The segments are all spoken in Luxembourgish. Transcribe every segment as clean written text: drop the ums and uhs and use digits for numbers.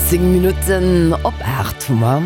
10 Minutten op 8 hu mer.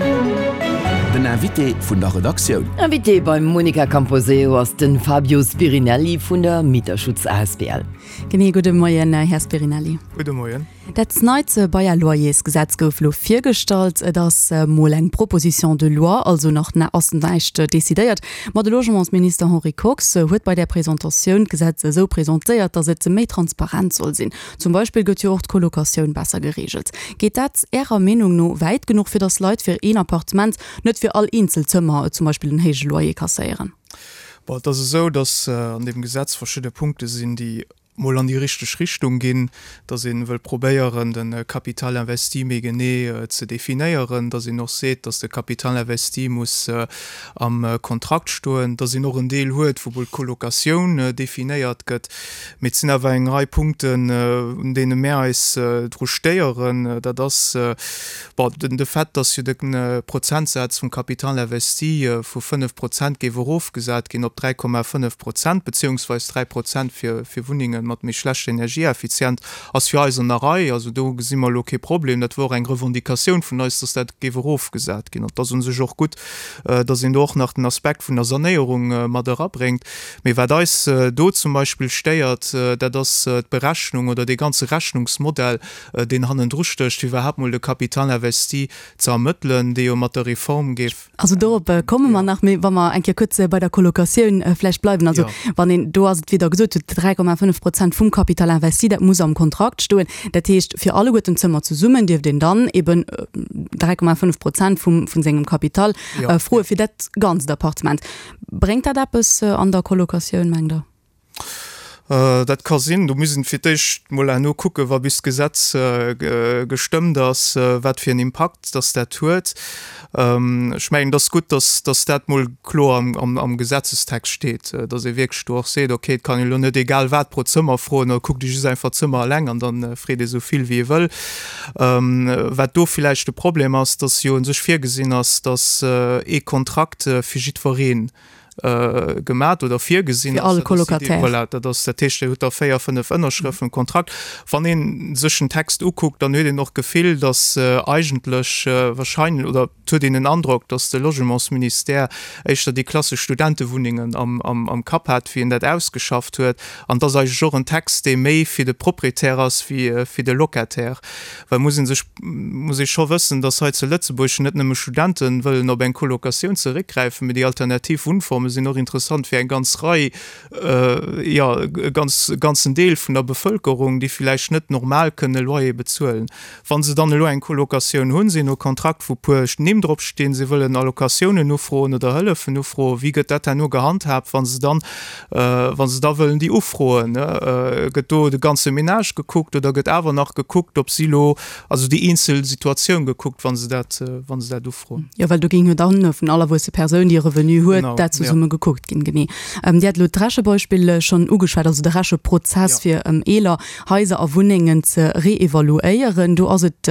Den Invité vun der Redaktioun. Invité beim Monica Camposeo ass den Fabio Spirinelli vun der Mieterschutz asbl. Genee, gudde Moien, Här Spirinelli. Gudde Moien. Dat neit Bail-à-loyers-Gesetz gouf elo virgestallt. Et ass mol eng Proposition de loi, also nach ass näischt decidéiert. Ma de Logementsminister Henri Kox huet bei där Presentatioun d'Gesetz esou presentéiert, datt et méi transparent soll sinn. Zum Beispill gëtt jo och d'Colocatioun besser gereegelt. Geet dat Ärer Meenung no wäit genuch, fir datt Leit fir een Appartement net fir all eenzel Zëmmer zum Beispill en héije Loyer kasséieren? Bon, et ass esou, datt an deem Gesetz verschidde Punkte sinn, déi mol an déi richteg Richtung ginn, datt ee wëll probéieren, de Capital investi méi genee ze definéieren, datt een och seet, datt de Capital investi muss am Kontrakt stoen, datt een och en Deel huet, wou mol d'Colocatioun definéiert gëtt. Mee et sinn awer eng Rei Punkten, un deene mär eis dru stéieren. Dat ass, bon, den de Fait, datt jo de Prozentsaz vum Capital investi vu 5 Prozent géif erofgesat ginn op 3,5 Prozent, beziehungsweis 3 Prozent fir fir Wunnenge mat méi schlechter Energieeffizient, ass fir eis an der Rei. Also do gesi mer elo kee Problem. Dat wor och eng Revendicatioun vun eis, datt dat géif erofgesat ginn. An et ass u sech och gutt, datt een do och nach den Aspekt vun der Sanéierung mat erabréngt. Mee wat eis do zum Beispill stéiert, dat ass d'Berechnung oder dee ganze Rechnungsmodell, deen hannendru stécht, fir iwwerhaapt mol de Capital investi ze ermëttelen, dee jo mat der Reform géif. Also dorop komme mer nach, mee wa mer eng Kéier kuerz bei der Colocatioun vläicht bleiwen. Also wann een, do ass et, wéi Der gesot hutt, 3,5 Prozent vum Capital investi, dat muss am Kontrakt stoen. Dat heescht, fir alleguerten d'Zëmmer zesummen dierft een dann eben 3,5 Prozent vum, vun sengem Capital froe fir dat ganzt Appartement. Bréngt dat eppes an der Colocatioun, mengt Der? Dat ka sinn. Do muss een fir d'éischt mol herno kucken, wa bis d'Gesetz gestëmmt ass, wat fir en Impakt dass dat huet. Ech mengen, et ass gutt, dass dass dat mol kloer am Gesetzestext steet, dass ee wierklech do och seet, okay, et kann een elo net egal wat pro Zëmmer froen, oder kuckt ee just einfach d'Zëmmer eleng an da freet ee sou vill wéi ee wëll. Wat do villäicht de Problem ass, dass jo u sech virgesinn ass, dass ee Kontrakt fir jiddwereen gemat oder virgesinn Fir all Colocataire. Voilà, dat ass dat heescht, Dir hutt da 4, 5 Ënnerschrëften um Kontrakt. Wann ee sech den Text ukuckt, dann huet een och d'Gefill, datt eigentlech wahrscheinlech, oder et huet een den Androck, datt de Logementsministère éischter déi klassesch Studentewunnengen am Kapp hat, wéi en dat ausgeschafft huet. An et ass eigentlech och en Text, dee méi fir de Proprietär ass wéi fir de Locataire. Well muss ee sech, muss ee scho wëssen, dass hei zu Lëtzebuerg net nëmme Studente wëllen op eng Colocatioun zeréckgräifen, mee déi alternativ Wunnforme sinn och interessant fir eng ganz Rei, jo, e ganz, e ganzen Deel vun der Bevëlkerung, déi villäicht net normal kënne Loyer bezuelen. Wa se dann elo eng Colocatioun hunn, si hunn e Kontrakt, wou puer Nimm drop stinn, si wëllen Allocatiounen ufroen oder Hëllefen ufroen, wéi gëtt dat herno gehandhaabt, wa se dann Wa se da wëllen déi ufroen, gëtt do de ganze Ménage gekuckt oder gëtt awer nach gekuckt, ob si elo, also déi eenzel Situatioun gekuckt, wa se dat, wa se dat ufroen? Jo, well do géing jo dann vun all erwuesse Persoun, déi e Revenu huet, dat zesumme gekuckt ginn. Genee. Dir hat elo d'Rechebeispill schonn ugeschwat, also de Recheprozess, fir eeler Haiser a Wunnengen ze reevaluéieren. Do ass et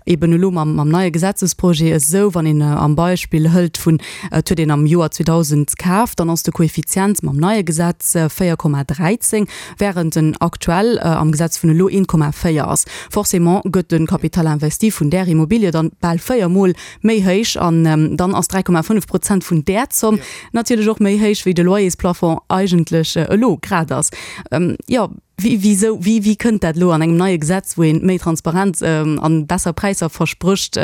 eben elo mam neie Gesetzesprojet esou, wann een am Beispill hëlt vun, et huet een am Joer 2000 kaf, dann ass de Koeffizient mam neie Gesetz 4,13, wärend en aktuell am Gesetz vun elo 1,4 ass. Forcément gëtt de Capital investi vun där Immobilie dann bal 4 Mol méi héich an dann ass 3,5 Prozent vun där Zomm natierlech och méi héich, wéi de Loyersplafond eigentlech elo grad ass. Jo. Wéi, wisou, wéi, wéi kënnt dat elo an engem neie Gesetz, wou een méi Transparenz an besser Präisser versprécht?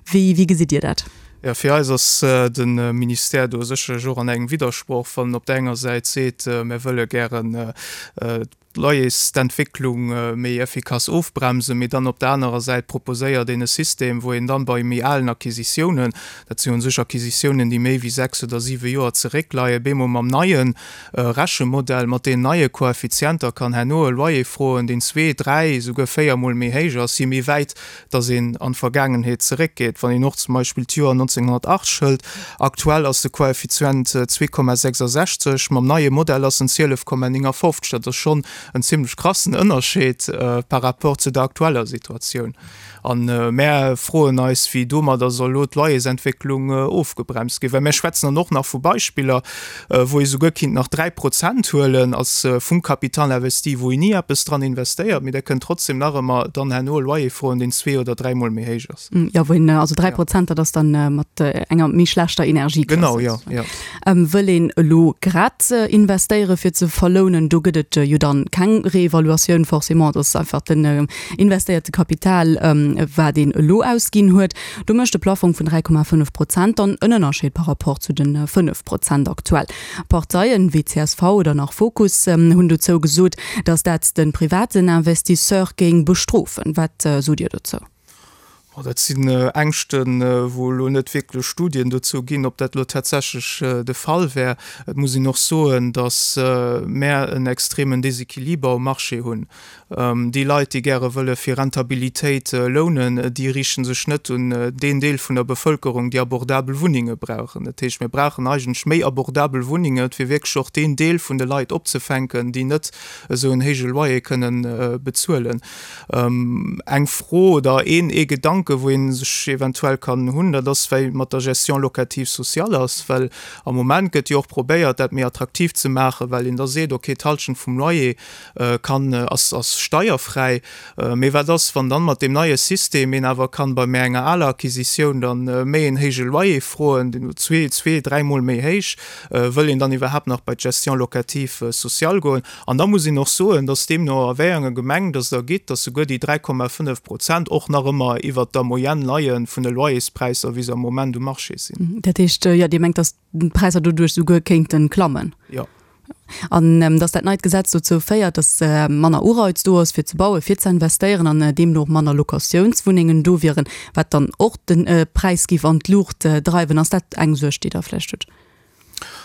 Wéi, wéi gesitt Dir dat? Jo, fir eis ass de Ministère do sécherlech och an engem Widdersproch, wann en op der enger Säit seet, mir wëlle gären d'Loyersentwécklung méi effikass ofbremsen, mee dann op der anerer Säit proposéiert een e System, wou een dann bei méi alen Acquisitiounen, dat sinn u sech Acquisitiounen, déi méi wéi 6 oder 7 Joer zeréckleien, bemol mam neie Rechemodell mat deenen neie Koeffizienter kann herno e Loyer froen, deen zwee, dräi, esouguer véiermol méi héich ass, je méi wäit dass een an d'Vergaangenheet zeréckgeet. Wann een och zum Beispill d'Joer 1980 hëlt, aktuell ass de Koeffizient 2,66, mam neie Modell ass en 12,59. Dat ass schonn. en zimlech krassen Ënnerscheed par rapport zu der aktueller Situatioun. A mär froen eis, wéi domadder soll elo d'Loyersentwécklung ofgebremst ginn. Well mär schwätzen dann och nach vu Beispiller, wou ee souguer kinnt nach 3 Prozent huelen als vum Capital investi, wou een ni eppes dran investéiert, mee der kënnt trotzdem nach ëmmer dann herno e Loyer froen, deen zwee oder dräimol méi héich ass. Jo, wou een also 3 Prozent, dat ass dann mat enger méi schlechter Energieklass. Genau, jo, jo. Wëll een elo grad investéiere fir ze verlounen, do gëtt et jo dann keng Reevaluatioun forcément, dat ass einfach den investéierte Kapital, wat een elo ausginn huet. Do mécht de Plaffong vun 3,5 Prozent dann en Ënnerscheed par rapport zu de 5 Prozent aktuell. Parteien wéi csv oder nach Fokus hunn dozou gesot, datt dat de privaten Investisseur géing bestrofen. Wat sot Dir dozou? Bon, dat sinn Ängschten, wou elo net wierklech Studien dozou ginn, ob dat elo tatsächlech de Fall wär. Et muss een och soen, datt mär en extremen Desequiliber um Marché hunn. Déi Leit, déi gäre wëlle fir Rentabilitéit lounen, déi riichte sech net un deen Deel vun der Bevëlkerung, déi abordabel Wunnenge brauchen. Dat heescht, mir brauchen eigentlech méi abordabel Wunnenge, fir wierklech och deen Deel vun de Leit opzefänken, déi net esou en héije Loyer kënnen bezuelen. Eng Fro oder een ee Gedanke wou ee sech eventuell kann hunn, dat ass wéi mat der Gestion locative sociale ass, well am Moment gëtt jo och probéiert dat méi attraktiv ze maachen, well een da seet, okay d'Halschent vum Loyer kann ass ass steierfräi. Mee wat ass wann dann mat deem neie System een awer kann bei méi enger aler Acquisitioun dann méi een héije Loyer froen, deen zwee zwee dräimol méi héich, wëll een dann iwwerhaapt nach bei d'Gestion locative sociale goen? An da muss een och soen, dass deemno a wéi enger Gemeng dass et ergitt, dass souguer déi 3,5 Prozent och nach ëmmer iwwert der Moyenne leie vun de Loyerspräisser, wéi se am Moment um Marché sinn. Dat heescht, jo, Dir mengt, dass d'Präisser doduerch souguer kéinte klammen? Jo. An dass dat neit Gesetz dozou féiert, dass manner Ureiz do ass, fir ze bauen, fir ze investéieren an deemno och manner Locatiounswunnengen do wieren, wat dann och de Präis géif an d'Luucht dreiwen. Ass dat eng Suerg, déi Der vläicht hutt?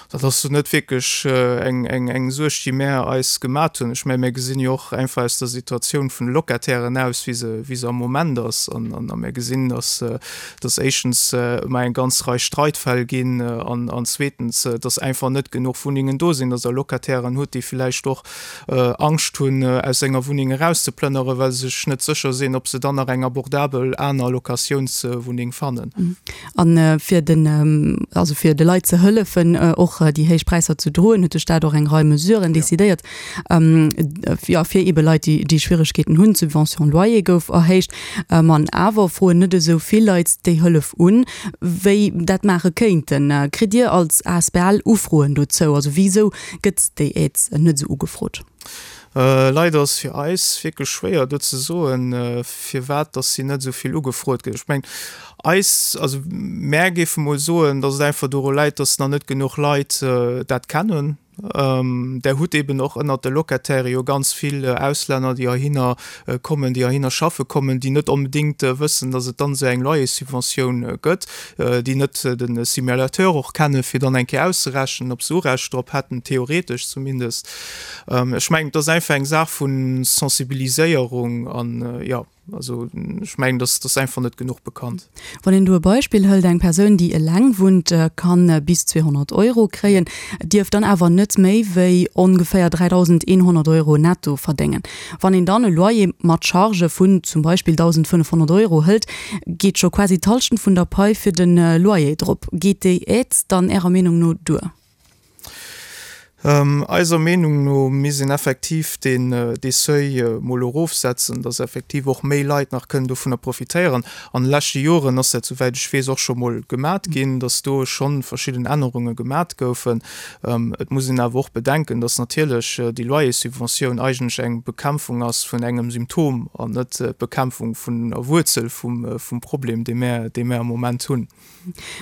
Dat ass net wierklech eng Suerg, déi mär eis gemat hunn. Ech mengen, mär gesinn jo och einfach aus der Situatioun vun de Locatairen aus, wéi se, wéi se am Moment ass. An a mär gesinn, datt, datt éischtens ëmmer eng ganz Rei Streitfäll ginn an, an zweetens, datt einfach net genuch Wunnengen do sinn, datt Der Locatairen hutt, déi villäicht och Angscht hunn, aus enger Wunneng erauszeplënnere, well se sech net sécher sinn, ob se dann nach eng abordabel aner Locatiounswunneng fannen. A fir den, also fir de Leit ze hëllefen, och déi héich Präisser ze droen, huet de Staat och eng Rei Mesuren decidéiert, jo, fir eebe Leit, déi, déi Schwieregkeeten hunn. D'Subvention loyer gouf erhéicht. An awer froen net esou vill Leit déi Hëllef un, wéi dat maache kéinten. Kritt Dir als asbl Ufroen dozou? Also wisou gëtt déi Aide net esou ugefrot? Leider ass fir eis wierklech schwéier do ze soen, firwat dass si net esou vill ugefrot gëtt. Ech mengen, eis, also mär géife mol soen, dass et einfach doru läit, dass nach net genuch Leit dat kennen. Der hutt eeben och ënnert de Locataire jo ganz vill Auslänner, déi heihinner kommen, déi heihinner schaffe kommen, déi net onbedéngt wëssen, dass et dann esou eng Loyerssubventioun gëtt, déi net de Simulateur och kennen, fir dann eng Kéier auszerechnen, ob se Urecht drop hätten, theoretesch zumindest. Ech mengen, et ass einfach eng Saach vu Sensibiliséierung an, jo. Also ech mengen, dass ass einfach net genuch bekannt. Wann een do e Beispill hëlt, eng Persoun, déi eleng wunnt, kann bis 200 Euro kréien, dierf dann awer net méi wéi ongeféier 3.100 Euro netto verdéngen. Wann een dann e Loyer mat Chargë vun zum Beispill 1.500 Euro hëlt, geet scho quasi d'Hallschent vun der Pai fir de Loyer drop. Geet déi Aide dann Ärer Meenung no duer? Eiser Meenung no misst een effektiv deen dee Seuil mol erofsetzen, dass effektiv och méi Leit nach kënnen dovunner profitéieren. An de leschte Joren ass dat, souwäit ech weess, och scho mol gemat ginn, dass do schonn verschidden Ännerunge gemat goufen. Et muss een awer och bedenken, dass natierlech déi Loyerssubventioun eigentlech eng Bekämpfung ass vun engem Symptom an net d'Bekämpfung vun der Wuerzel vum Problem, dee mär dee mär am Moment hunn.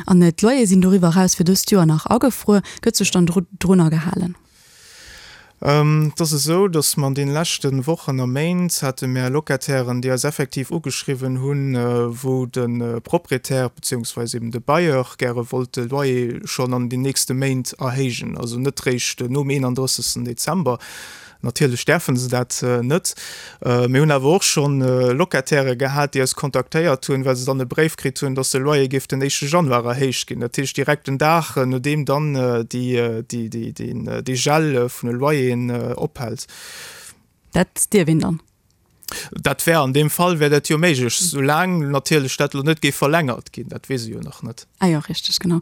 An d'Loyere sinn doriwwer eraus fir dëst Joer nach agefruer. Gëtt sech dann drunner gehalen? Et ass esou, datt mer an deene leschte Wochen a Méint hate mär Locatairen, déi eis effektiv ugeschriwwen hunn, wou de Proprietär beziehungsweise eben de Bailleur gäre wollt de Loyer schonn an den nächste Méint erhéijen, also net réischt nom 31. Dezember. Natierlech däerfe se dat net. Mir hunn awer och scho Locatairë gehat, déi eis kontaktéiert hunn, well se dann e Bréif kritt hunn, dass de Loyer géif den éischte Januar erhéicht ginn. Dat heescht direkt den Dag, nodeem dann dee Gel vun de Loyeren ophält. Dat dierf een dann? Dat wär an deem Fall wär dat jo méiglech, soulaang natierlech dat elo net géif verlängert ginn. Dat weess ee jo nach net. Ah jo, richteg, genau.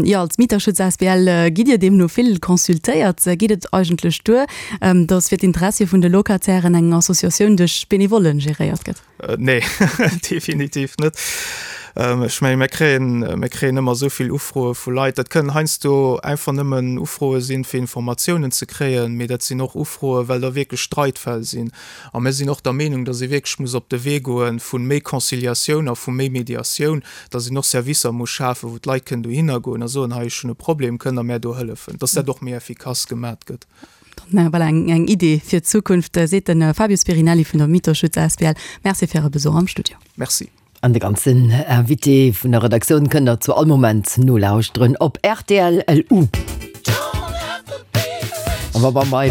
Jo, als Mieterschutz asbl gitt Dir deemno vill consultéiert. Geet et eigentlech duer, datt fir d'Interessie vun de Locatairen eng Associatioun duerch Benevollen geréiert gëtt? Nee, definitiv net. Ech mengen, mir kréien, mir kréien ëmmer esou vill Ufroe vu Leit. Dat kënnen heiansdo einfach nëmmen Ufroe sinn, fir Informatiounen ze kréien, mee dat sinn och Ufroe well da wierklech Streitfäll sinn. A mir sinn och der Meenung, datt ee wierklech muss op de Wee goe vu méi Conciliatioun a vu méi Mediatioun, datt een och Servicer muss schafen, wou d'Leit kënnen dohinner goen a soen, hei ech hunn e Problem, kënnt Der mär do hëllefen, datt dat och méi effikass gemat gëtt. Dann voilà, eng, eng Idee fir d'Zukunft, seet de Fabio Spirinelli vun der Mieterschutz asbl. Merci fir Äre Besuch am Studio. Merci. An de ganzen Invité vun der Redaktioun kënnt der zu all Moment nolauschteren op rtl. LU. A wa bei.